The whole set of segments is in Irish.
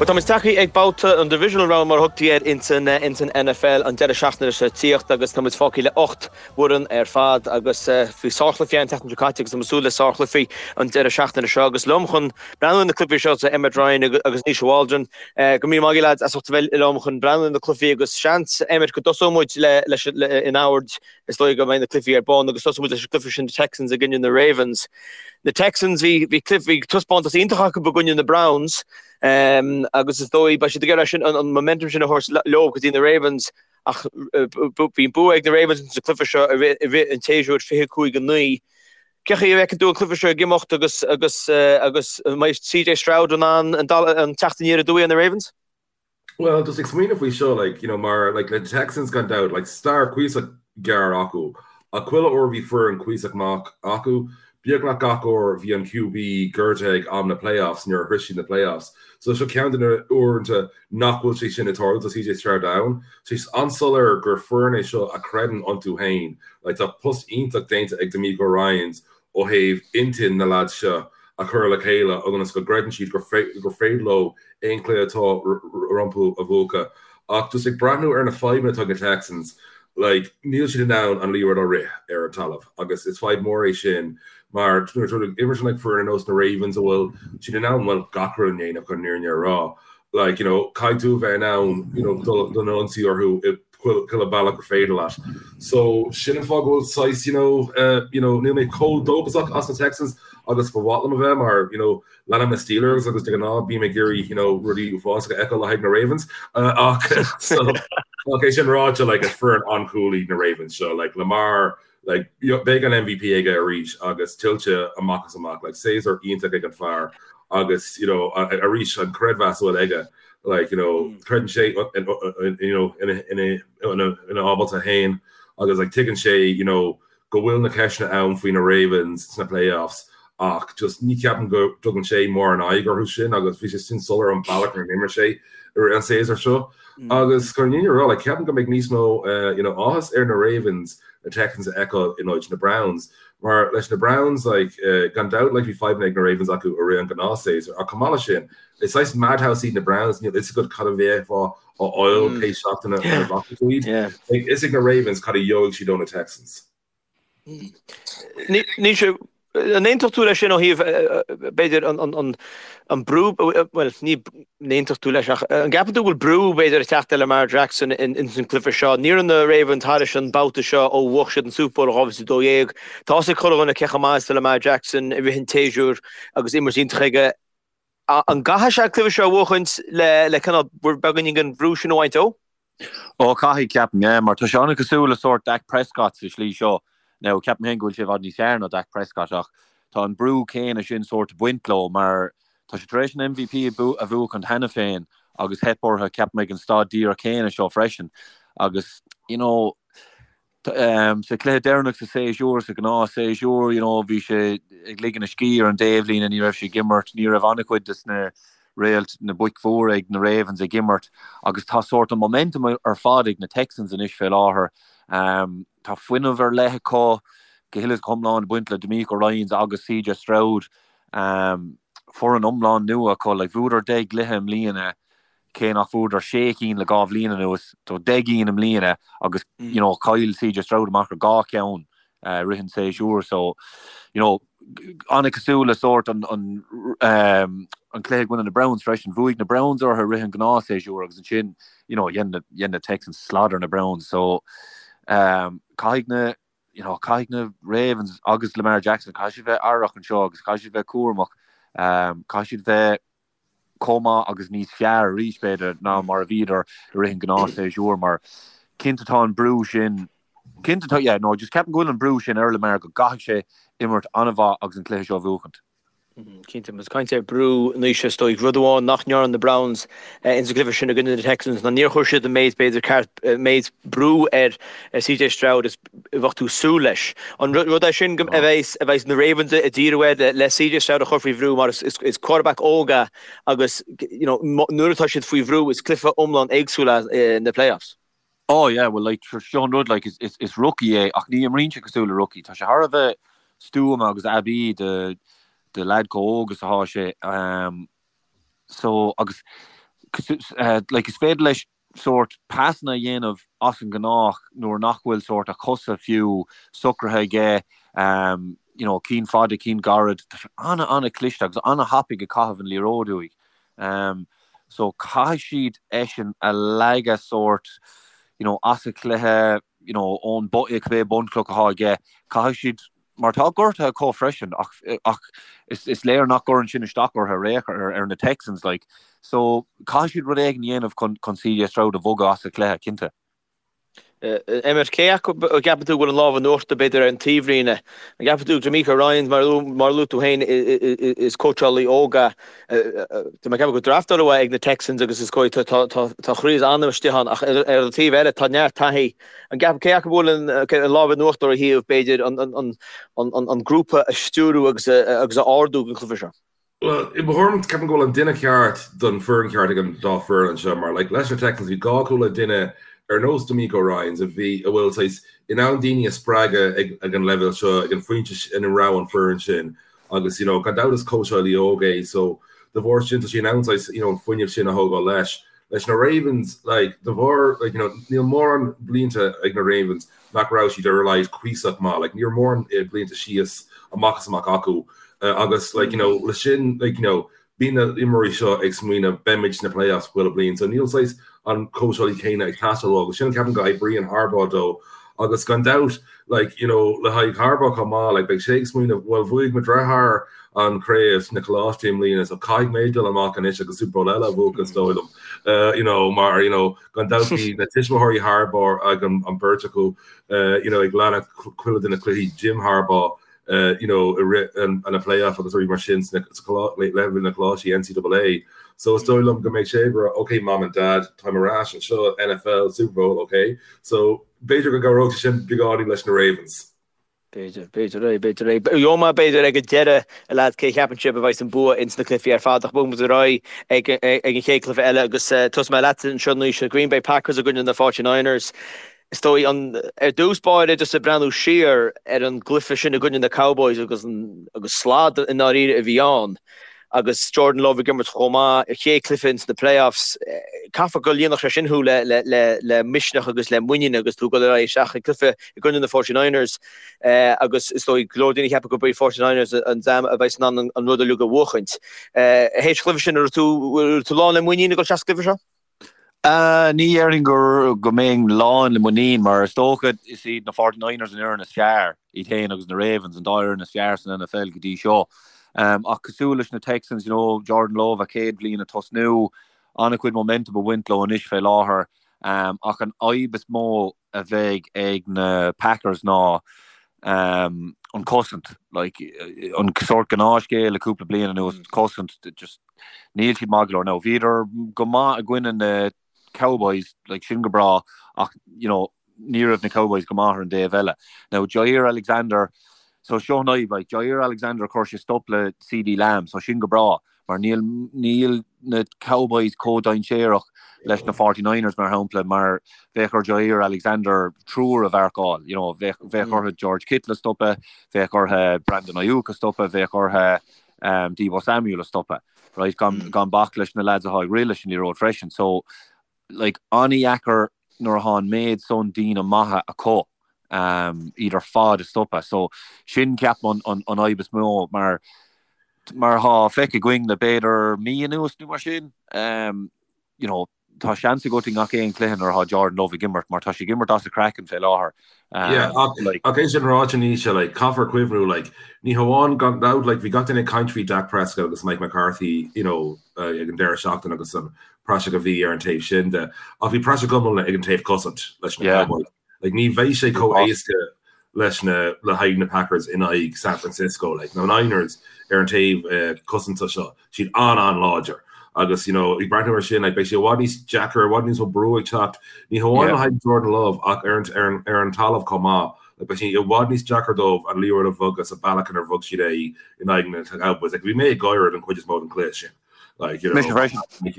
Bhuel, táimid tagtha ag babhta an Divisional Round mar a thugtaí air ins an NFL an deireadh seachtaine seo tíocht agus táimid fágtha le 8 bhfoireann ar fad agus bhí sárchluichí an tseachtain seo caite agus táimid ag súil le sárchluichí an deireadh seachtaine seo agus liom chun breathnú ar na cluichí seo tá Emmet Ryan agus Naoise Waldron. Go raibh míle maith agaibh lads as ucht a bheith liom chun breathnú ar na cluichí agus seans Emmet go dtosóidh muid leis in ord is dóigh go mbeidh na cluichí ar bun agus tosóidh muid leis an gcluiche sin na Texans i gcoinne na Ravens. Na Texans bhí bhí cluiche bhí taispeántas iontach acu i gcoinne na Browns agus is dóigh beidh siad ag iarraidh sin an momentum sin a thabhairt leo go dtí na Ravens ach bhí an bua ag na Ravens sa chluiche seo i rith an tséasúir 25-9. Cén chaoi a bhfeiceann tú an cluiche seo ag imeacht agus agus agus an mbeidh CJ Stroud in ann an teacht aniar aduaidh ar na Ravens? Well, just ag smaoineamh faoi seo, like, you know, mar, like, le Texans gan dabht, like, stair cuíosach gearr acu, ach chuile uair bhí foireann cuíosach maith acu, beagnach gach uair bhí an QB gortaithe ag am na playoffs nuair a shroich siad na playoffs. So seo ceann de na uaireanta nach bhfuil sé sin ag tarlú, tá CJ Stroud ann. Tá sé an-soiléir gur foireann é seo a chreideann iontu féin, like, tá post iontach déanta ag DeMeco Ryans ó thaobh intinn na leaids seo a chur le chéile ionas go gcreideann siad gur féidir leo aon chluiche atá rompu a bhuachan. Ach just ag breathnú ar na fadhbanna atá ag na Texans, like, níl siad in ann an liathróid a rith ar an talamh agus is fadhb mór é sin mar nuair atá tú ag imirt in aghaidh foireann ar nós na Ravens a bhfuil siad in ann, bhuel, gach rud a dhéanamh chun an fhírinne a rá. Like, you know, caithfidh tú a bheith in ann, you know, dul don ionsaí orthu i chuile bealach gur féidir leat. So, sin an fáth go bhfuil saghas, you know, uh, you know, níl mé chomh dóchasach as na Texans agus ba mhaith liom a bheith mar, you know, leanaim na Steelers agus de ghnáth bím ag iarraidh, you know, rudaí uafásacha a fheiceáil le haghaidh na Ravens. Uh, ach, so, ach é sin ráite, like, is foireann an-cool iad na Ravens seo, like, Lamar, like, beidh an MVP aige arís agus tuillte amach is amach, like, séasúr iontach ag an fear agus, you know, arís an creidmheas a bhfuil aige, like, you know, creideann sé, you know, ina ábalta féin agus, like, tuigeann sé, you know, go bhfuil na ceisteanna ann faoi na Ravens sna playoffs ach just ní cheapaim go dtugann sé mórán aghaidh orthu sin agus bhí sé sin soiléir an bealach ar imir sé i rith an séasúr seo. Agus chun an fhírinne a rá, like, ceapaim go mbeidh níos mó, you know, áthas ar na Ravens na Texans a fheiceáil in áit na Browns. Mar leis na Browns, like, gan dabht, like, bhí fadhbanna ag na Ravens acu i rith an gnáthshéasúr ach chomh maith leis sin, is saghas madhouse iad na Browns, níl fhios agat cad a bheifeá a fháil pé seachtain a bhfaca tú iad. Beidh fhios ag na Ravens cad a gheobhaidh siad ó na Texans. Naoise, an aontódh tú leis sin ó thaobh, b'fhéidir, an brú, bhuel, ní aontódh tú leis ach an gceapann tú go bhfuil brú, b'fhéidir, ag teacht ar Lamar Jackson ins an gcluiche seo? Ní raibh na Ravens thairis an babhta seo ó bhuaigh siad an Super Bowl i 2012. Tá fhios ag chuile dhuine cé chomh maith is atá Lamar Jackson i rith an tséasúir agus imirt iontach aige. An gcaithfidh sé an cluiche seo a bhuachaint le cineál beagáinín den bhrú sin a bhaint dó? Ó, caithfidh, ceapaim, yeah, mar tá sé an-chosúil le sórt Dak Prescott sa slí seo. Now, ceapaim féin go bhfuil sé i bhfad níos fearr ná Dak Prescott ach tá an brú céanna sin sórt ag baint leo mar tá sé tar éis an MVP a bhuachaint cheana féin agus theip orthu, ceapaim, ag an staid díreach céanna seo freisin. Agus, you know, Sa chluiche deireanach sa séasúr, sa ghnáth séasúr, you know, bhí sé ag ligean a scíth ar an dtaobhlíne, ní raibh sé ag imirt, ní raibh an-chuid des na réalt, na boic mhóra ag na Ravens ag imirt agus tá sórt an momentum ar fad ag na Texans anois fé láthair. Tá fuinneamh ar leith acu, go huile is go hiomlán ag baint le DeMeco Ryans agus CJ Stroud. Foireann iomlán nua acu, like, bhuadar 10 gcluiche i mbliana, cé nach bhfuaireadar sé cinn le 2 bhliain anuas, so 10 gcinn i mbliana agus you know chaill CJ Stroud amach ar 2 cheann i rith an tséasúir so you know an-chosúil le sórt an an an cluiche i gcoinne na Browns freisin, bhuaigh na Browns orthu i rith an ghnáthshéasúir agus ansin you know dhein na dhein na Texans slad ar na Browns so um caithfidh na you know caithfidh na Ravens agus Lamar Jackson caithfidh siad bheith aireach anseo agus caithfidh siad bheith cúramach um caithfidh siad bheith chomh maith agus níos fearr arís, b'fhéidir, ná mar a bhíodar i rith an ghnáthshéasúir mar cinnte tá an brú sin, cinnte tá, yeah, no, just ceapaim go bhfuil an brú sin ar Lamar go gcaithfidh sé imirt an-mhaith agus an cluiche seo a bhuachaint. Cinnte, más caint ar brú anois is dóigh, rud amháin nach ndearna na Browns ins an gcluiche sin i gcoinne na Texans ná níor chuir siad an méid, b'fhéidir, ceart, méid brú ar CJ Stroud is a bheadh tú ag súil leis. An rud é sin a bheas a bheas na Ravens ag díriú air le CJ Stroud a chur faoi bhrú mar is quarterback óg é agus you know nuair atá siad faoi bhrú is cluiche iomlán éagsúil é na playoffs. Oh yeah, well like seo an rud like is is is rookie é ach ní imríonn sé cosúil le rookie. Tá sé thar a bheith stuama agus aibí do do leaid chomh óg is atá sé. Um, So, agus. Like is féidir leis sórt pasanna a dhéanamh as an ngnách nuair nach bhfuil sórt a chosa fiú socraithe aige, you know, cinn fada, cinn gairid. Tá sé ana, ana cliste agus ana thapaidh ag caitheamh an liathróid uaidh. So caithfidh siad eisean a leagadh sórt, you know, as an chluiche, you know, ón cibé bunchloch atá aige, caithfidh siad mar tá gortuithe acu freisin ach ach is is léir nach gcuireann sin isteach orthu ar aon chor ar na Texans like so caithfidh siad rud éigin a dhéanamh chun chun CJ Stroud a bhogadh as an chluiche cinnte. Emmet, cé acu a gceapann tú go bhfuil an lámh in uachtar b'fhéidir ar an taobhlíne? An gceapann tú DeMeco Ryans mar mar a luaigh tú féin is cóitseálaí óg é tá mé ag ceapadh gur draftáladh é ag na Texans agus is dóigh tá tá tá tá chroí is anam istigh ann ach ar an taobh eile tá neart taithí An gceapann, cé acu a bhfuil an lámh in uachtar ó thaobh, b'fhéidir, an grúpa a stiúrú agus a ardú don chluiche seo? Bhuel, i mo thuairim, ceapaim go bhfuil an duine ceart don foireann ceart ag an dá foireann anseo mar, like, leis na Texans, bhí gá acu le duine ar nós DeMeco Ryans a bhí, a bhfuil saghas, in ann daoine a spreagadh ag, ag an leibhéal seo, ag an phointe ina raibh an foireann sin agus, you know, gan dabht is cóitseálaí óg é so de bharr sin tá sé in ann saghas, you know, an fuinneamh sin a thógáil leis. Leis na Ravens, like, de bharr, like, you know, níl mórán blianta ag na Ravens nach raibh siad ar a laghad cuíosach maith, like, ní raibh mórán blianta síos amach is amach acu agus, like, you know, le sin, like, you know, bíonn na imreoirí seo ag smaoineamh beimid sna playoffs chuile bliain, so níl saghas an cóitseálaí céanna ag teastáil uathu agus sin ceapaim go oibríonn Harbaugh dó agus gan dabht, like, you know, le haghaidh Harbaugh chomh maith, like, beidh sé ag smaoineamh, bhuel, bhuaigh mo dheartháir an chraobh sna coláistí i mbliana, so caithfidh mé dul amach anois agus Super Bowl eile a bhuachan, is dóigh liom, uh, you know, mar, you know, gan dabht bhí na tuismitheoirí Harbaugh ag an, an beirt acu, uh, you know, ag leanacht chuile de na cluichí Jim Harbaugh, uh, you know, i rith an, an playoff agus rudaí mar sin sna, sa leibhéal na coláistí NCAA. So is dóigh liom go mbeidh sé ag rá, okay, mom and dad, táim ar ais anseo, NFL, Super Bowl, okay. So b'fhéidir go gcabhródh sé sin beagáinín leis na Ravens. B'fhéidir, b'fhéidir é, b'fhéidir é. Gheobhaidh mé b'fhéidir ag an deireadh, a leaids, cé a cheapann sibh a bheidh an bua ins na cluichí ar fad ach bogfaidh muid ar aghaidh ag an chéad cluiche eile agus tosóidh mé leatsa anseo Naoise, Green Bay Packers i gcoinne na Forty Niners. Is dóigh an, ar dtús báire just ag breathnú siar ar an gcluiche sin i gcoinne na Cowboys agus an, agus slad i ndáiríre a bhí ann. agus Jordan Love ag imirt chomh maith, a chéad chluiche ins na playoffs, caithfidh go líonfadh sé sin thú le le misneach agus le muinín agus tú ag dul ar aghaidh isteach i gcluiche i gcoinne na Forty Niners agus is dóigh go leor daoine ag ceapadh gurb iad Forty Niners an dream a bheas in ann an rud uilig a bhuachaint. Théis an chluiche sin, an raibh tú raibh tú lán le muinín ag dul isteach sa gcluiche seo? Ní dhéarfainn go go mbeinn lán le muinín mar is dócha is iad na Forty Niners an fhoireann is fearr, iad féin agus na Ravens an dá fhoireann is fearr san NFL go dtí seo. Ach cosúil leis na Texans, you know, Jordan Love a chéad bhliain ag tosnú, an-chuid momentum ag baint leo anois fé láthair. Ach an fhadhb is mó a bheidh ag na Packers ná an cosaint. Like, an sórt gnáthscéal le cúpla bliain anuas, cosaint, just níl siad maith go leor. Now, bhíodar go maith i gcoinne na Cowboys, like, sin go breá, ach, you know, ní raibh na Cowboys go maith ar an dtaobh eile. Now, Jaire Alexander, so seo an fhadhb, like, Jaire Alexander chuir sé stop le CeeDee Lamb, so sin go breá. mar níl níl na Cowboys chomh dainséarach leis na 49ers mar shampla mar bheadh ar Jaire Alexander triúr a mharcáil, you know, bheadh bheadh orthu George Kittle a stopadh, bheadh orthu Brandon Aiyuk a stopadh, bheadh orthu um, Deebo Samuel a stopadh, right? Gan, mm. gan bac leis na lads atá ag rith leis an liathróid freisin. So like, an-dheacair nuair atá an méid san daoine maithe acu iad ar fad a stopadh. So sin ceapaim an an fhadhb is mó mar mar atá feicthe againn le b'fhéidir mí anuas nó mar sin, you know, tá seans agat i ngach aon chluiche nuair atá Jordan Love ag imirt mar tá sé ag imirt as a chraiceann fé láthair. Yeah, ach like, ach é sin ráite Naoise, like, caithfear cuimhniú, like, ní hamháin gan dabht, like, bhí gach duine ag caint faoi Dak Prescott agus Mike McCarthy, you know, ag an deireadh seachtaine agus an praiseach a bhí ar an taobh sin de, ach bhí praiseach iomlán ag an taobh cosaint leis na Cowboys. Like, ní bheidh sé chomh éasca leis na le haghaidh na Packers in aghaidh San Francisco. Like, na Niners ar an taobh uh, cosanta seo, siad an-an-láidir. Agus you know, ag breathnú ar sin, like, beidh sé i bhfad níos deacra, i bhfad níos mó brú ag teacht, ní hamháin le haghaidh Jordan Love ach ar an, ar an, ar an talamh chomh maith. Like, beidh sé i bhfad níos deacra dóibh an liathróid a bhogadh sa bealach inar bhog siad é in aghaidh na Cowboys. Like, bhí mé ag gáire den chuid is mó den chluiche sin. Like, you know,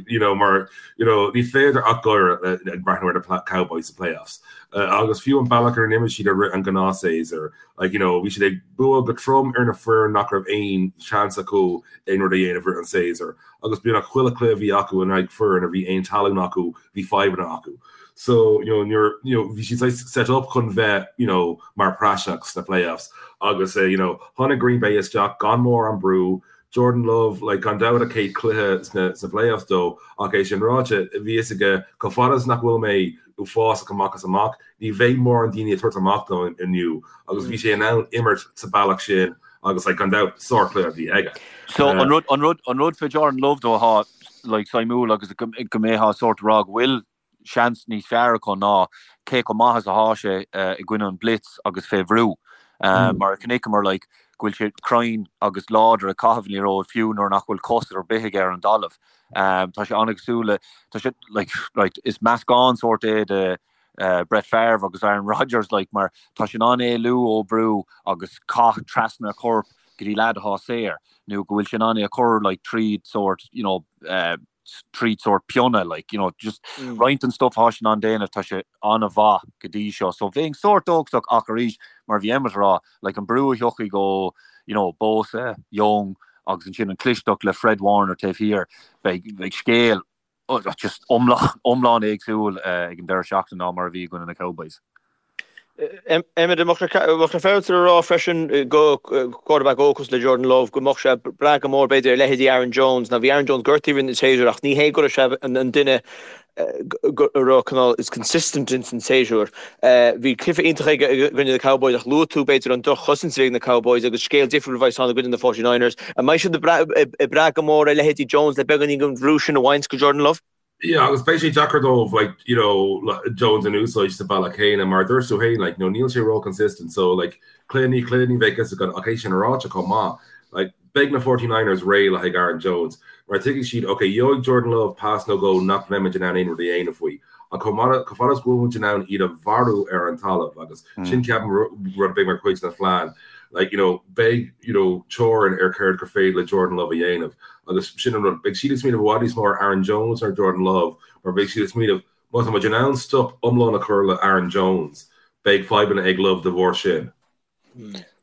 you know, mar, you know, ní féidir ach gáire ag breathnú ar na Cowboys sa playoffs. Agus fiú an bealach ar n-imir siad i rith an gnáthshéasúir, like, you know, bhí siad ag bua go trom ar na foireann nach raibh aon seans acu aon rud a dhéanamh rith an séasúr. Agus beagnach chuile chluiche a bhí acu in aghaidh foireann a bhí aon talún acu, bhí fadhbanna acu. So, you know, nuair, you know, bhí siad saghas set up chun bheith, you know, mar praiseach sna playoffs. Agus, you know, tháinig Green Bay isteach gan mórán brú, Jordan Love, like, gan dabht a chéad chluiche sna sna playoffs dó, ach é sin ráite, bhí fhios aige, chomh fada is nach bhfuil mé uafásach amach is amach, ní bheidh mórán daoine ag tabhairt amach dom inniu, agus bhí sé in ann imirt sa bealach sin agus, like, gan dabht, sárchluiche a bhí aige. So, an rud, an rud, an rud fé Jordan Love though atá, like, suimiúil agus go mbeifeá sórt ag rá go bhfuil seans níos fearr acu ná cé chomh maith is atá sé i gcoinne an blitz agus fé bhrú. Mar a chonaiceamar like go bhfuil sé cruinn agus láidir ag caitheamh an liathróid fiú nuair nach bhfuil cos ar bith aige ar an dtalamh. Tá sé an-chosúil le, tá sé like, right, is meascán sórt é de Brett Favre agus Aaron Rodgers like mar tá sé in ann éalú ó brú agus caith trasna a chorp go dtí leaid atá saor nó go bhfuil sé in ann é a chur like tríd sórt you know tríd sórt pionna, like, you know, just roinnt den stuff atá sé in ann déanamh, tá sé an-mhaith go dtí seo. So bheinn sórt dóchasach ach arís, mar a bhí Emmet ag rá, like, an brú a thiocfaidh ó, you know, Bosa, Young agus ansin an chlisteacht le Fred Warner taobh thiar, beidh, beidh scéal just iomlán, iomlán éagsúil ag an deireadh seachtaine ná mar a bhí i gcoinne na Cowboys. Emmet, an mbeadh sé féaráilte a rá freisin go quarterback óg cosúil le Jordan Love go mbeadh sé ag brath go mór b'fhéidir ar leithéidí Aaron Jones. Now bhí Aaron Jones gortaithe i rith an tséasúir ach ní hé go raibh sé an duine a raibh cineál is consistent ins an séasúr. Bhí cluiche iontach aige i gcoinne na Cowboys ach luaigh tú b'fhéidir an droch-chosaint a bhí ag na Cowboys agus scéal difriúil a bheas ann i gcoinne na 49ers. An mbeidh siad ag brath go mór ar leithéidí Jones le beagáinín den bhrú sin a bhaint go Jordan Love? Yeah, agus beidh sé deacair dóibh, like, you know, Jones a úsáid sa bealach céanna, mar a dúirt tú féin, like, you know, níl sé ró-consistent, so, like, cluiche i ndiaidh cluiche ní bheidh fhios agat, ach é sin ráite chomh maith, like, beidh na 49ers réidh le haghaidh Aaron Jones, mar tuigfidh siad, ok, gheobhaidh Jordan Love pas nó dhó nach mbeimid in ann aon rud a dhéanamh faoi, ach chomh maith, chomh fada is go bhfuil muid in ann iad a mharú ar an talamh, agus sin, ceapaim, rud a bheidh mar chuid den phlean, like, you know, beidh, you know, teorainn ar céard gur féidir le Jordan Love a dhéanamh. Agus sin an rud, beidh siad ag smaoineamh i bhfad níos mó ar Aaron Jones ná ar Jordan Love, mar beidh siad ag smaoineamh, má tá muid in ann stop iomlán a chur le Aaron Jones, beidh fadhbanna ag Love de bharr sin.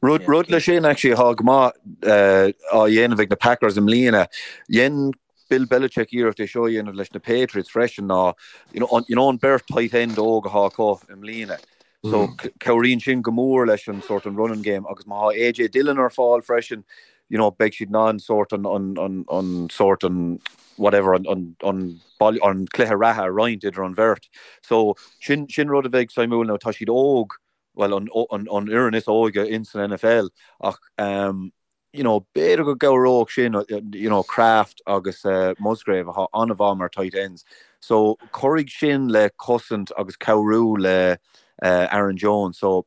Rud, rud leis sin, actually, atá go maith á dhéanamh ag na Packers i mbliana, dhein Bill Belichick iarracht é seo a dhéanamh leis na Patriots freisin ná, you know, you know an beirt tight end óg atá acu i mbliana. So cabhraíonn sin go mór leis an sort an running game agus má tá AJ Dillon ar fáil freisin, you know, beidh siad in ann sort an, an, an, an sort an whatever, an, an, an, an cluiche reatha a roinnt idir an bheirt. So sin, sin rud a bheidh suimiúil now tá siad óg, well an, an, an fhoireann is óige in san NFL ach um, you know, b'fhéidir go gcabhródh sin, you know, Kraft agus Musgrave atá an-mhaith mar tight ends. So cuirfidh sin le cosaint agus cabhrú le Aaron Jones. So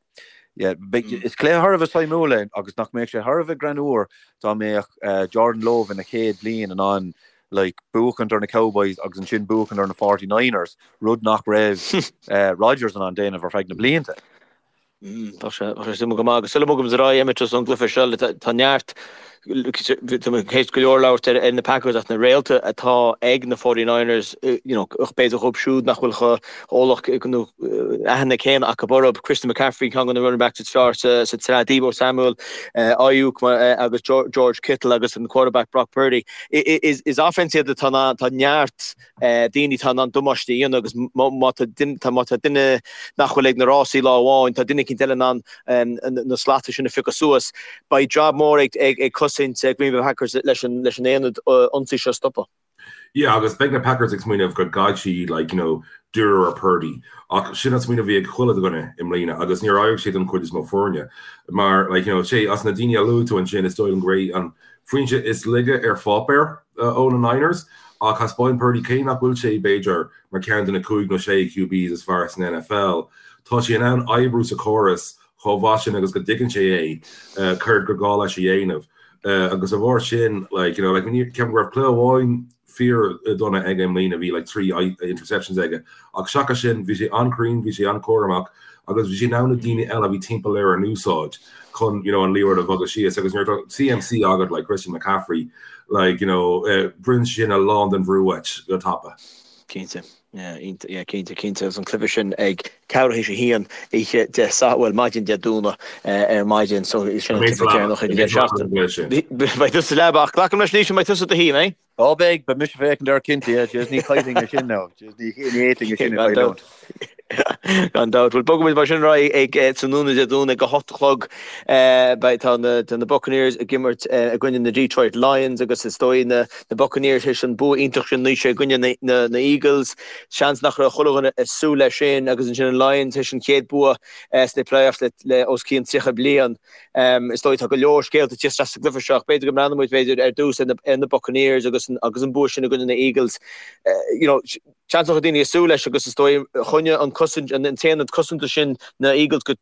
yeah, is cluiche thar a bheith suimiúil é agus nach mbeadh sé thar a bheith greannmhar dá mbeadh Jordan Love ina chéad bhliain in ann like buachaint ar na Cowboys agus ansin buachaint ar na 49ers, rud nach raibh Rodgers in ann déanamh ar feadh na blianta. Tá sé suimiúil go maith. Agus sula mbogaimid ar aghaidh, Emmet, as an gcluiche seo, tá neart, tá mé théis go leor labhairt ar na Packers ach na réalta atá ag na 49ers, you know, ach b'fhéidir dhóibh siúd nach bhfuil chomh eolach nó aithne céanna acu orthu. Christian McCaffrey, ceann de na running backs is fearr sa tsraith, Deebo Samuel, Aiyuk agus George Kittle agus an quarterback Brock Purdy. Is offense iad atá, tá neart daoine atá in ann damáiste a dhéanamh agus má tá má tá duine nach bhfuil ag na rásaí lá amháin, tá duine eicínt eile in ann na slata sin a phiocadh suas. Beidh jab mór ag ag cosaint Green Bay Packers leis an leis an aonad ionsaí seo a stopadh. Yeah, agus beidh na Packers ag smaoineamh go gcaithfidh siad like, you know, díriú ar Purdy. Ach sin an smaoineamh a bhí ag chuile dhuine i mbliana agus níor éirigh sé don chuid is mó foirne. Mar like, you know, sé as na daoine a luaigh tú ansin is dóigh liom gurb é an foinse is laige ar pháipéar ó na Niners, ach thaispeáin Purdy cé nach bhfuil sé, b'fhéidir, mar cheann de na cúig nó sé QBs is fearr san NFL, tá sé in ann oibriú sa chóras chomh maith sin agus go dtuigeann sé é, céard gur gá leis a dhéanamh. Agus dá bharr sin, like, you know, like, ceapaim go raibh cluiche amháin fíor dona aige i mbliana, bhí like 3 interceptions aige, ach seachas sin bhí sé an-chruinn, bhí sé an-chúramach agus bhí sé in ann na daoine eile a bhí timpeall air a úsáid chun you know an liathróid a bhogadh síos agus nuair atá CMC agat like Christian McCaffrey like you know brúnn sin a lán den bhrú uait go tapa. Cinnte. Yeah, yeah, cinnte, cinnte. Agus an cluiche sin ag ceathrú théis a haon oíche Dé Sathairn, bhuel, maidin Dé Domhnaigh ar maidin, so sin an cluiche deireanach ag an deireadh seachtaine. Beidh tusa sa leaba, ach glacaim leis anois go mbeidh tusa i do shuí, mbeidh? Ó beidh, beidh mise ag féachaint air cinnte, yeah, jeez, ní chaillfinn é sin now, jeez, ní fhéadfainn é sin a chailliúint. Gan dabht. Bhuel, bogfaimid mar sin ar aghaidh ag tráthnóna Dé Domhnaigh ag a hocht a chlog. Beidh tá na tá na Buccaneers ag imirt i gcoinne na Detroit Lions agus is dóigh na na Buccaneers théis an bua iontach sin anois i gcoinne na na na Eagles. Seans nach raibh chuile dhuine ag súil leis sin agus ansin an Lions théis an chéad bua sna playoffs le le os cionn 30 bliain. Is dóigh tá go leor scéalta ag tíocht isteach sa gcluiche seo ach b'fhéidir go mbreathnóidh muid b'fhéidir ar dtús ar na ar na Buccaneers agus an agus an bua sin i gcoinne na Eagles. You know, Seans nach raibh daoine ag súil leis agus is dóigh choinnigh an cosaint, an t-aonad cosanta sin na Eagles go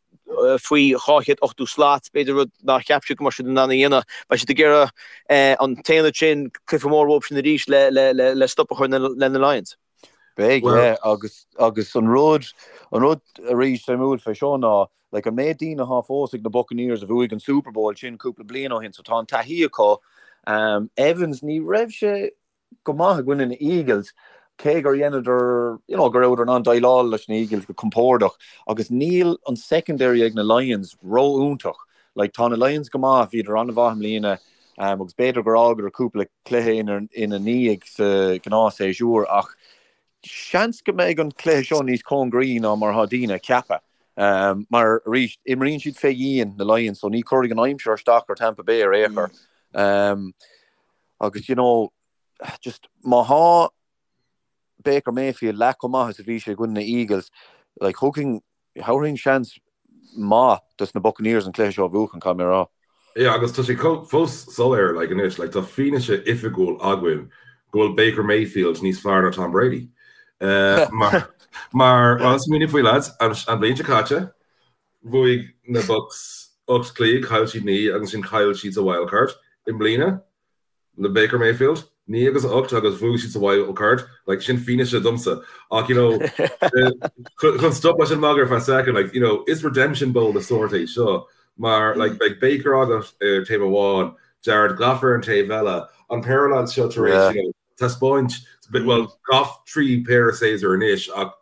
faoi 280 slat, b'fhéidir rud nár cheap siad go mbeadh siad in ann a dhéanamh. Beidh siad ag iarraidh an t-aonad sin, cluiche mór uathu sin arís le le le stop a chur le na Lions. Beidh, yeah, agus agus an rud an rud arís suimiúil fé seo ná like an méid daoine atá fós ag na Buccaneers a bhuaigh an Super Bowl sin cúpla bliain ó shin so tá an taithí acu. Evans ní raibh sé go maith i gcoinne na Eagles, cé gur dheineadar, you know, go rabhadar in ann déileáil leis na Eagles go compordach agus níl an secondary ag na Lions ró-iontach. Like, tá na Lions go maith, bhíodar an-mhaith i mbliana um, agus b'fhéidir gur fhágadar cúpla cluiche ina, ina ndiaidh sa ghnáthshéasúr ach seans go mbeidh an cluiche seo níos cóngaraí ná mar atá daoine ag ceapadh. Um, mar arís, imríonn siad fé dhíon na Lions, so ní chuirfidh an aimsir isteach ar Tampa Bay ar aon chor. Um, Agus you know, just má thá Baker Mayfield leath chomh maith is a bhí sé i gcoinne na Eagles, like thugfainn, thabharfainn seans maith dos na Buccaneers an cluiche seo a bhuachan, caithfidh mé a rá. Yeah, agus tá sé fós soiléir, like anois, like tá fianaise oifigiúil againn go bhfuil Baker Mayfield níos fearr ná Tom Brady. Uh, mar, mar, well, smaoinigh faoi lads, an, an bhliain seo caite, Bhuaigh na Bucs 8 cluiche, chaill siad 9 agus ansin chaill siad sa wildcard. I mbliana, le Baker Mayfield, 9 agus 8 agus bhuaigh siad sa wildcard. Like, sin fianaise domsa. Ach, you know, chun stop leis an magadh ar feadh second, like, you know, is redemption bowl de sórt é seo. Mar, like, beidh Baker agat ar taobh amháin, Jared Goff ar an taobh eile, an péire lads seo tar éis, you know, taispeáint, bhuel, Goff 3 péire séasúr anois ach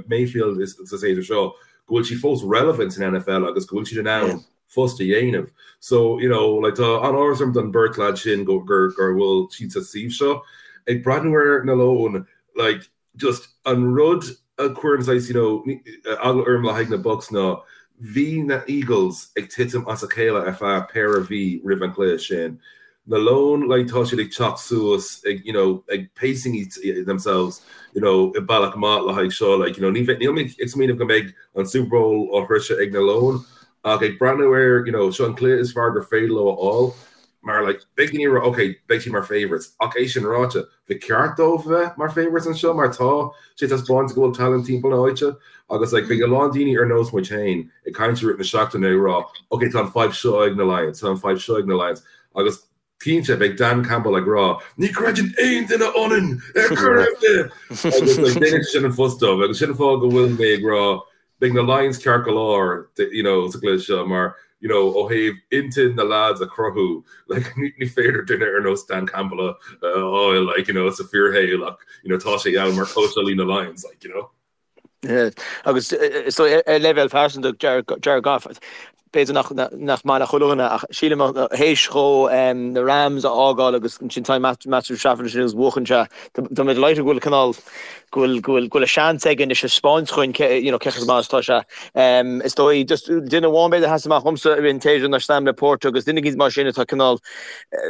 Mayfield sa séasúr seo, go bhfuil siad fós relevant san NFL agus go bhfuil siad in ann fuss a dhéanamh. So, you know, like tá an-áthas orm don beirt lad sin go gur gur bhfuil siad sa suíomh seo. Ag breathnú ar na Leoin, like, just an rud a chuireann saghas, you know, eagla orm le haghaidh na Bucs ná bhí na Eagles ag titim as a chéile ar feadh péire mhí roimh an chluiche sin. Na Leoin, like, tá siad ag teacht suas, ag, you know, ag pacing themselves, you know, i bealach maith le haghaidh seo, like, you know, ní bheidh, níl mé ag smaoineamh go mbeidh an Super Bowl á shroiseadh ag na Leoin, ach ag breathnú air, you know, seo an cluiche is fearr gur féidir leo a fháil, mar, like, beidh daoine ag rá, okay, beidh siad mar favourites, ach é sin ráite, Ba cheart dóibh a bheith mar favourites anseo mar tá sé taispeánta go bhfuil talent timpeall na háite agus like beidh a lán daoine ar nós muid féin ag caint i rith na seachtaine ag rá ok tá an fadhb seo ag na Lions, tá an fadhb seo ag na Lions agus cinnte beidh Dan Campbell ag rá ní chreideann aon duine ionainn ar chor ar bith agus like déanann sé sin an fuss dóibh agus sin an fáth go bhfuil mé ag rá Beidh na Lions ceart go leor you know sa gcluiche seo mar you know ó thaobh intinn na lads a chruthú like ní féidir duine ar nós Dan Campbell a fháil like you know sa fíorshaol ach you know tá sé ann mar cóitseálaí na Lions like you know. Yeah. Agus so ar leibhéal pearsanta Jared Goff b'fhéidir nach nach maith le chuile dhuine ach sílim théis dhó na Rams a fhágáil agus ansin tá Matthew Stafford ansin agus buachan sé tá mé delighted go bhfuil cineál go bhfuil go bhfuil go bhfuil a seans aige anois a 'speáint dhúinn cé you know cé chomh maith is atá sé. Is dóigh just duine amháin b'fhéidir a sheas amach dhomsa i rith an tséasúir ná Sam LaPorta agus duine éicint mar sin atá cineál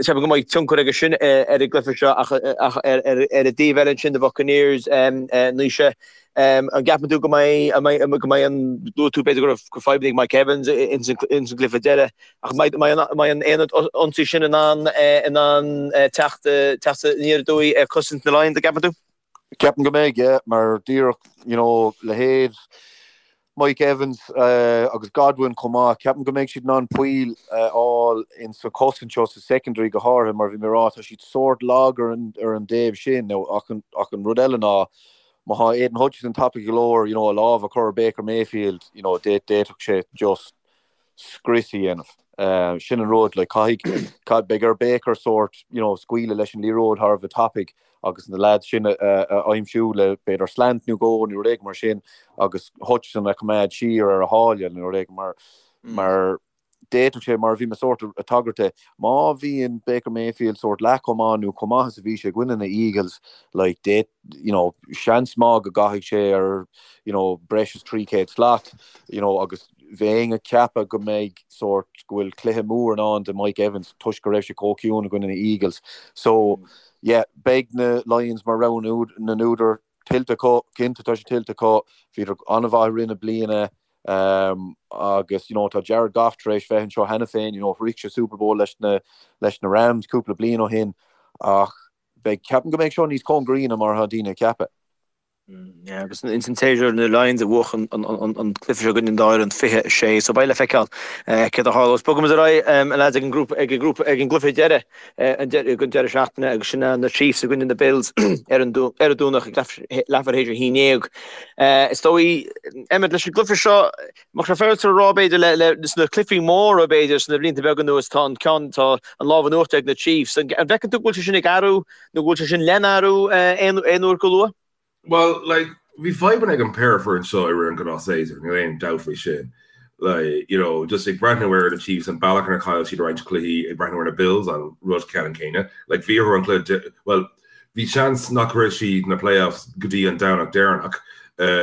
ceapaim go mbeidh tionchar aige sin ar an gcluiche seo ach ach ar ar ar an dtaobh eile ansin na Buccaneers Naoise An gceapann tú go mbeidh, go mbeidh an, luaigh tú b'fhéidir go raibh fadhbanna ag Mike Evans ins an gcluiche deiridh, ach an mbeidh an aonad ionsaí sin in ann, in ann teacht, teacht aniar aduaidh ar chosaint na Lions, an gceapann tú? Ceapaim go mbeidh, yeah, mar díreach, you know, leithéid. Mike Evans agus Godwin chomh maith, ceapaim go mbeidh siad in ann poill a fháil in sa chosaint seo, sa secondary go háirithe, mar bhí mé ag rá, tá siad sórt lag ar an ar an dtaobh sin. Now, ach an ach an rud eile ná, má thá Aidan Hutchinson tapaidh go leor, you know, a lámh a chur ar Baker Mayfield, you know, d'fhéadfadh sé just scrios a dhéanamh. Sin an rud, like, caithfidh, beidh ar Baker sórt, you know, scaoileadh leis an liathróid thar a bheith tapaidh agus na lads sin a aimsiú le b'fhéidir slant nó dhó nó rud éigin mar sin agus Hutchinson a choimeád siar ar a sháile nó rud éigin mar, mar d'fhéadfadh sé, mar a bhí mé sórt ag tagairt de, má bhíonn Baker Mayfield sórt leath chomh maith nó chomh maith is a bhí sé i gcoinne na Eagles, like, d'fhéad, you know, seans maith go gcaithfidh sé ar, you know, breis is 300 slat, you know, agus bheinn ag ceapadh go mbeidh sórt, go bhfuil cluiche mór i ndán do Mike Evans toisc go raibh sé chomh ciúin i gcoinne na Eagles. So, yeah, beidh na Lions mar rogha na n-údar tuillte acu, cinnte tá sé tuillte acu, bhíodar an-mhaith i rith na bliana agus, you know, tá Jared Goff tar éis bheith anseo cheana féin, you know, shroich sé Super Bowl leis na, leis na Rams cúpla bliain ó shin ach beidh, ceapaim go mbeidh seo níos cóngaraí ná mar atá daoine ag ceapadh. Yeah, agus ins an tséasúr na Lions a bhuaigh an cluiche seo i gcoinne an dá fhoireann 26, so beidh le feiceáil céard a tharlós. Bogaimis ar aghaidh, a lads, ag an grúpa, ag an grúpa, ag an gcluiche deiridh den deireadh seachtaine agus sin na Chiefs i gcoinne na Bills ar an ar an Domhnach ag leathuair théis a 11. Is dóigh, Emmet, leis an gcluiche seo, Mbeadh sé féaráilte a rá, b'fhéidir, le, le, sna cluichí móra, b'fhéidir, sna blianta beaga anuas, tá an ceann, tá an lámh in uachtar ag na Chiefs. An bhfeiceann tú go bhfuil sé sin ag athrú nó go bhfuil sé sin lena athrú aon, aon uair go luath? Bhuel, like, bhí fadhbanna ag an péire foireann seo i rith an gnáthshéasúir, níl aon dabht faoi sin. Like, you know, just ag breathnú ar na Chiefs, an bealach inar chaill siad roinnt cluichí, ag breathnú ar na Bills, an rud ceannann céanna. Like, bhí orthu an cluiche, bhuel, Bhí seans nach raibh siad na playoffs go dtí an Domhnach deireanach,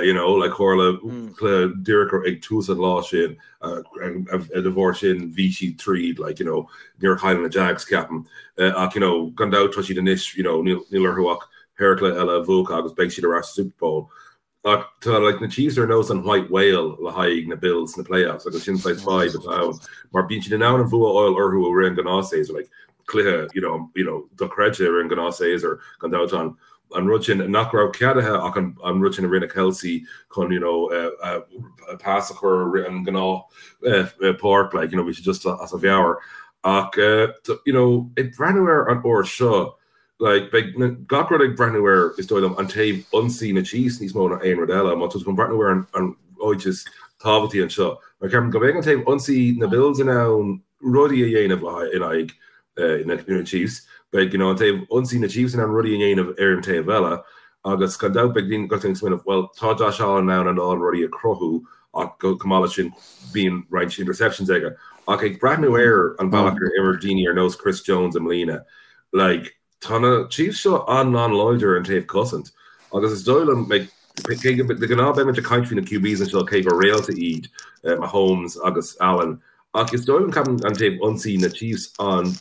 you know, like tharla cluiche díreach ag tús an lá sin, de bharr sin bhí siad tríd, like, you know, níor chaill na Jags, ceapaim. Ach, you know, gan dabht tá siad anois, you know, níl orthu ach péire cluiche eile a bhuachan agus beidh siad ar ais sa Super Bowl. Ach tá like na Chiefs ar nós an white whale le haghaidh na Bills sna playoffs agus sin saghas fadhb atá ann mar bíonn siad in ann an bhua a fháil orthu i rith an gnáthshéasúir like cluiche you know you know dochreidte i rith an gnáthshéasúir gan dabht an an rud sin nach raibh ceadaithe ach an an rud sin a rinne Kelce chun you know uh, uh, pas a chur i rith an gnáth uh, uh, páirc like you know bhí sé just as a mheabhair ach uh, you know ag breathnú ar an uair seo Like, beidh na, gach rud ag breathnú ar, is dóigh liom, an taobh ionsaí na Chiefs níos mó ná aon rud eile. Má tá tú chun breathnú ar an, an áit is tábhachtaí anseo. Mar ceapaim go mbeidh an taobh ionsaí na Bills in ann rudaí a dhéanamh le haghaidh, in aghaidh eh, na, na Chiefs. Beidh, you know, an taobh ionsaí na Chiefs in ann rudaí a dhéanamh ar an taobh eile. Agus gan dabht beidh daoine, gach duine ag smaoineamh, well, tá Josh Allen in ann a lán rudaí a chruthú ach go, chomh maith leis sin bíonn roinnt interceptions aige. Ach ag breathnú ar an bealach ar imir daoine ar nós Chris Jones i mbliana, Like, tá na Chiefs seo an-an-láidir ar an taobh cosaint agus is dóigh liom, like, cé go, de ghnáth beimid ag caint faoi na QBs anseo cé gur réalta iad Mahomes agus Allen ach is dóigh liom ceapaim an taobh ionsaí na Chiefs an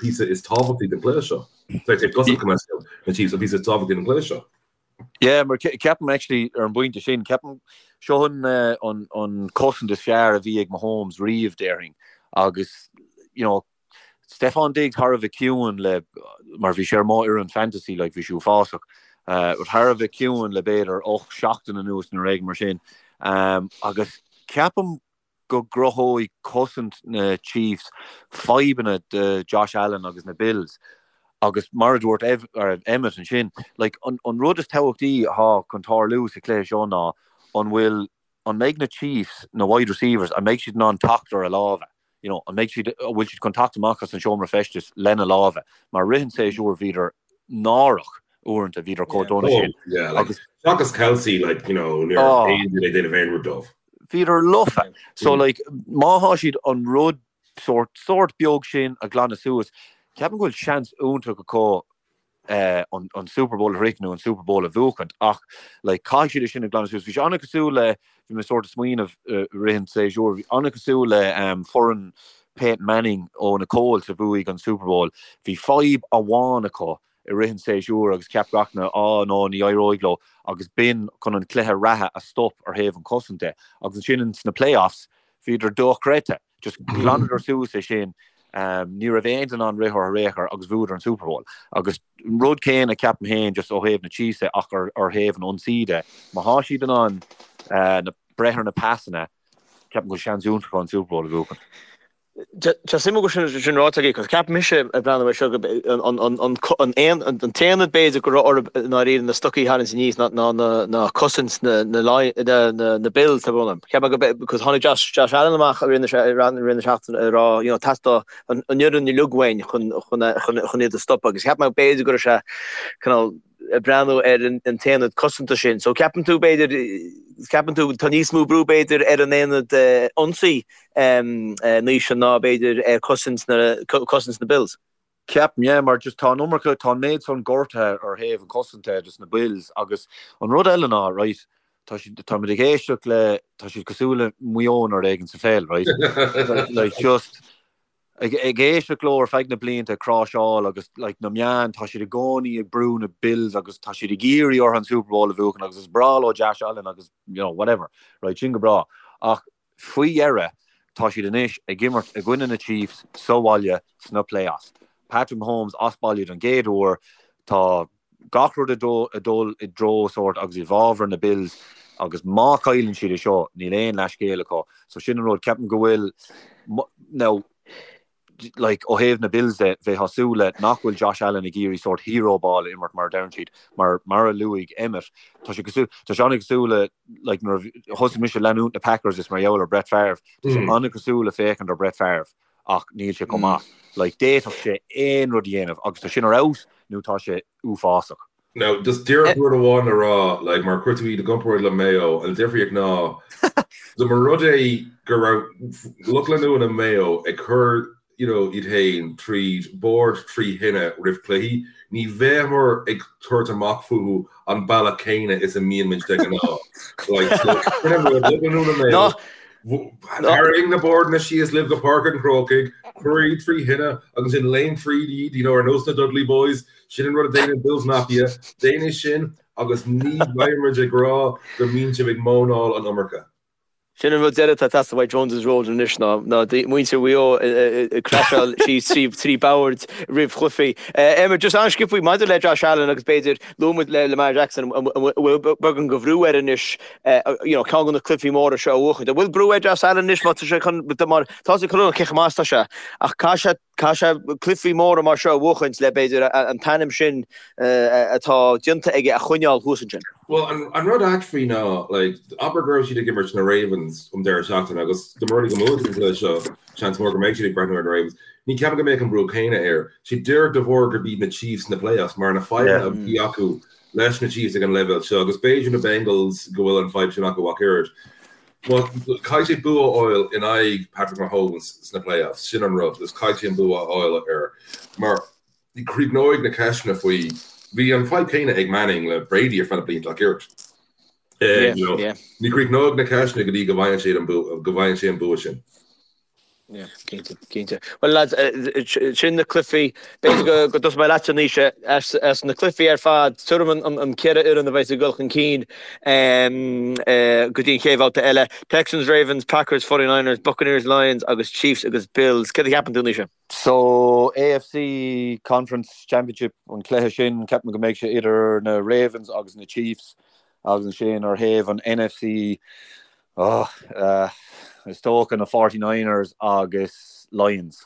píosa is tábhachtaí den chluiche seo. Sorry, taobh cosaint go na Chiefs an píosa is tábhachtaí den chluiche seo. Yeah, mar ceapaim actually ar an bpointe sin, ceapaim seo an an an cosaint is fearr a bhí ag Mahomes riamh déarfainn agus you know Stefon Diggs thar a bheith ciúin le, mar bhí sé ar mo fhoireann fantasy like bhí sé uafásach, but thar a bheith ciúin le b'fhéidir 8 seachtain anuas nó rud éigin mar sin. Agus ceapaim go gcruthóidh cosaint na Chiefs fadhbanna do Josh Allen agus na Bills. Agus mar a dúirt Emmet ansin, like an rud is tábhachtaí atá chun tarlú sa chluiche seo ná an bhfuil, an mbeidh na Chiefs, na wide receivers, an mbeidh siad in ann teacht ar a lámha? You know, an mbeidh siad, an bhfuil siad chun teacht amach as an seomra feistis lena lámha? Mar rith an tséasúir bhíodar náireach uaireanta, bhíodar chomh dona sin. Oh, yeah, like, Agus seachas Kelce, like, you know, ní raibh oh. aon duine ag déanamh aon rud dóibh. Bhíodar lofa. So, like, má thá siad an rud sórt, sórt beag sin a ghlanadh suas, ceapaim go bhfuil seans iontach acu an Super Bowl a shroicheadh nó an Super Bowl a bhuachaint ach like caithfidh siad é sin a ghlanadh suas. Bhí sé an-chosúil le, bhí mé sórt ag smaoineamh i rith an tséasúir, bhí an-chosúil le foireann Peyton Manning ó na Colts a bhuaigh an Super Bowl. Bhí fadhb amháin acu i rith an tséasúir agus cheap gach duine á no ní éireoidh leo agus b'in chun an cluiche reatha a stop ar thaobh an chosaint de. Agus ansin sna playoffs bhíodar dochreidte. Just ghlanadar suas é sin, ní raibh aon duine in ann rith orthu ar aon chor agus bhuadar an Super Bowl. Agus an rud céanna ceapaim féin just ó thaobh na Chiefs de ach ar thaobh an ionsaí de, má thá siad in ann na. breith ar na pasanna, ceapaim go bhfuil seans iontach acu an Super Bowl a bhuachan. Tá suim agam sin sin ráite agat, cos ceapaim mise ag breathnú air seo go an an an an aon an t-aonad b'fhéidir go raibh orthu i ndáiríre na stocaí a tharraingt aníos ná ná na ná cosaint na na na na na Bills tá brón orm. Ceapaim go be cos tháinig Josh Josh Allen amach i rith na i rith na seachtaine ag rá you know theastaigh an an fhoireann uilig uainn chun chun chun chun iad a stopadh agus cheap mé b'fhéidir go raibh sé cineál ag breathnú ar an t-aonad cosanta sin. So ceapann tú b'fhéidir, ceapann tú tá níos mó brú b'fhéidir ar an aonad ionsaí Naoise ná b'fhéidir ar cosaint na, cosaint na Bills? Ceapaim, yeah, mar just tá an iomarca, tá an méid san gortaithe ar thaobh an cosanta dos na Bills agus an rud eile ná, right, tá siad, táimid ag éisteacht le, tá siad cosúil le Maigh Eo nó rud éigin sa pheil, right? Like just, Ag éisteacht leo ar feadh na blianta ag cráiseáil agus like na meáin, tá siad i gcónaí ag brú na Bills agus tá siad ag iarraidh orthu an Super Bowl a bhuachan agus is breá leo Josh Allen agus you know whatever, right, sin go breá. Ach faoi dheireadh tá siad anois ag imirt i gcoinne na Chiefs sa bhaile sna playoffs. Patrick Mahomes as baile don gcéad uair, tá gach rud ag dul i dtreo sórt agus i bhfabhar na Bills agus má chailleann siad é seo níl aon leathscéal acu. So sin an rud, ceapaim go bhfuil now like ó thaobh na Bills de bheifeá ag súil le nach bhfuil Josh Allen ag iarraidh sórt hero ball a imirt mar a deireann siad mar mar a luaigh Emmet tá sé cosúil tá sé an-chosúil le like nuair a thosaigh mise leanúint na Packers is mar gheall ar Brett Favre tá sé an-chosúil le féachaint ar Brett Favre ach níl sé chomh maith. Like, d'fhéadfadh sé aon rud a dhéanamh agus tá sin ar fheabhas nó tá sé uafásach. Now, just díreach rud amháin le rá, like, mar chuir tú iad i gcomparáid le Mayo Eo, an difríocht ná, dá mba rud é go raibh lucht leanúna Mayo Eo ag cur, you know, iad féin tríd bord trí thine roimh chluichí, ní bheimear ag tabhairt amach fúthu an bealach céanna is a mbíonn muid de ghnáth. Like, so, sin an rud, lucht leanúna Mayo Eo, Tarraing na boird síos libh go Páirc an Chrócaigh, cuir iad trí thine agus ansin léim tríd iad, you know, ar nós na Dudley Boys, sin an rud a déanann Bills Mafia, déan é sin agus ní bheidh muid ag rá go mbíonn sibh ag móineáil an iomarca. Sin an rud deiridh atá ag teastáil uaidh Jones's Road anois ná muintir Mhaigh Eo ag craiseáil síos trí bhoird roimh chluichí. Emmet, just an-sciobtha maidir le Josh Allen agus b'fhéidir luaigh muid le Lamar Jackson an bhfuil beagán de bhrú air anois you know, ceann de na cluichí móra seo a bhuachaint. An bhfuil brú ar Josh Allen anois má tá sé chun, mar tá sé chun cé chomh maith is atá sé, ach caithfidh sé, caithfidh sé cluichí móra mar seo a bhuachaint le b'fhéidir an t-ainm sin atá déanta aige a choinneáil thuas ansin. Bhuel, an, an rud ait faoi ná, like, abair go raibh siad ag imirt na Ravens um deireadh seachtaine agus dá mba rud é go mbuafaidh an cluiche seo, seans mór go mbeidh siad ag breathnú ar na Ravens. Ní ceapaim go mbeadh an brú céanna air. Sé díreach de bharr gurb iad na Chiefs sna playoffs mar na fadhbanna a bhí acu leis na Chiefs ag an leibhéal seo agus b'fhéidir na Bengals go bhfuil an fadhb sin acu ach oiread. Caithfidh sé bua a fháil in aghaidh Patrick Mahomes sna playoffs, sin an rud, is caithfidh sé an bua a fháil air mar críochnóidh na ceisteanna faoi, bhí an fadhb céanna ag Manning le Brady ar feadh na blianta ach oiread. Ní chríochnóidh na ceisteanna go dtí go bhfaigheann sé an go bhfaigheann sé an bua sin. Yeah, cinnte, cinnte. Well lads, sin na cluichí, b'fhéidir go go dtosóidh mé leatsa Naoise, as as na cluichí ar fad, tuairim an an an ceithre fhoireann a bheas ag dul chun cinn go dtí an chéad bhabhta eile. Texans, Ravens, Packers, 49ers, Buccaneers, Lions agus Chiefs agus Bills. Céard a cheapann tú Naoise? So AFC Conference Championship an cluiche sin, ceapaim go mbeidh sé idir na Ravens agus na Chiefs agus ansin ar thaobh an NFC, Oh, is dócha na 49ers agus Lions.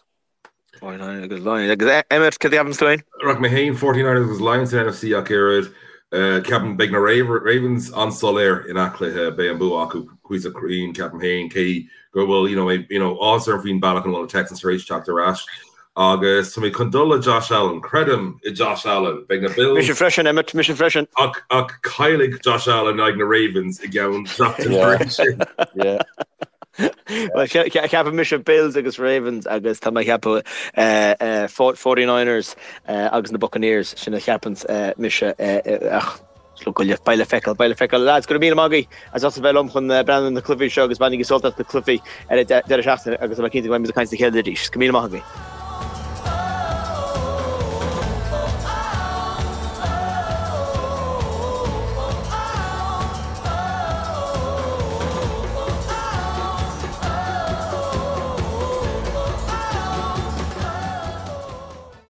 49ers agus Lions. Agus Emmet, cad a cheapann tú féin? Rachaidh mé féin 49ers agus Lions san NFC ach oiread. Ceapaim beidh na Ravens an-soiléir i ngach cluiche, beidh an bua acu cuíosach cruinn, ceapaim féin, cé go bhfuil you know, you know, áthas orm faoin bealach ina bhfuil na Texans tar éis teacht ar ais. Agus tá mé chun dul le Josh Allen. Creidim i Josh Allen. Beidh na Bills. Mise freisin, Emmet, mise freisin. Ach, ach caillfidh Josh Allen in aghaidh na Ravens i gceann seachtain tar éis sin. Yeah. Well, ceapaim mise Bills agus Ravens agus tá mé ag ceapadh 49ers agus na Buccaneers, sin a cheapann mise ach Beidh le feiceáil, beidh le feiceáil. Lads, go raibh míle maith agaibh as ucht a bheith liom chun breathnú ar na cluichí seo agus bainigí sult as na cluichí ar an deireadh seachtaine agus tá mé cinnte go mbeidh muid ag caint le chéile arís. Go raibh míle maith agaibh.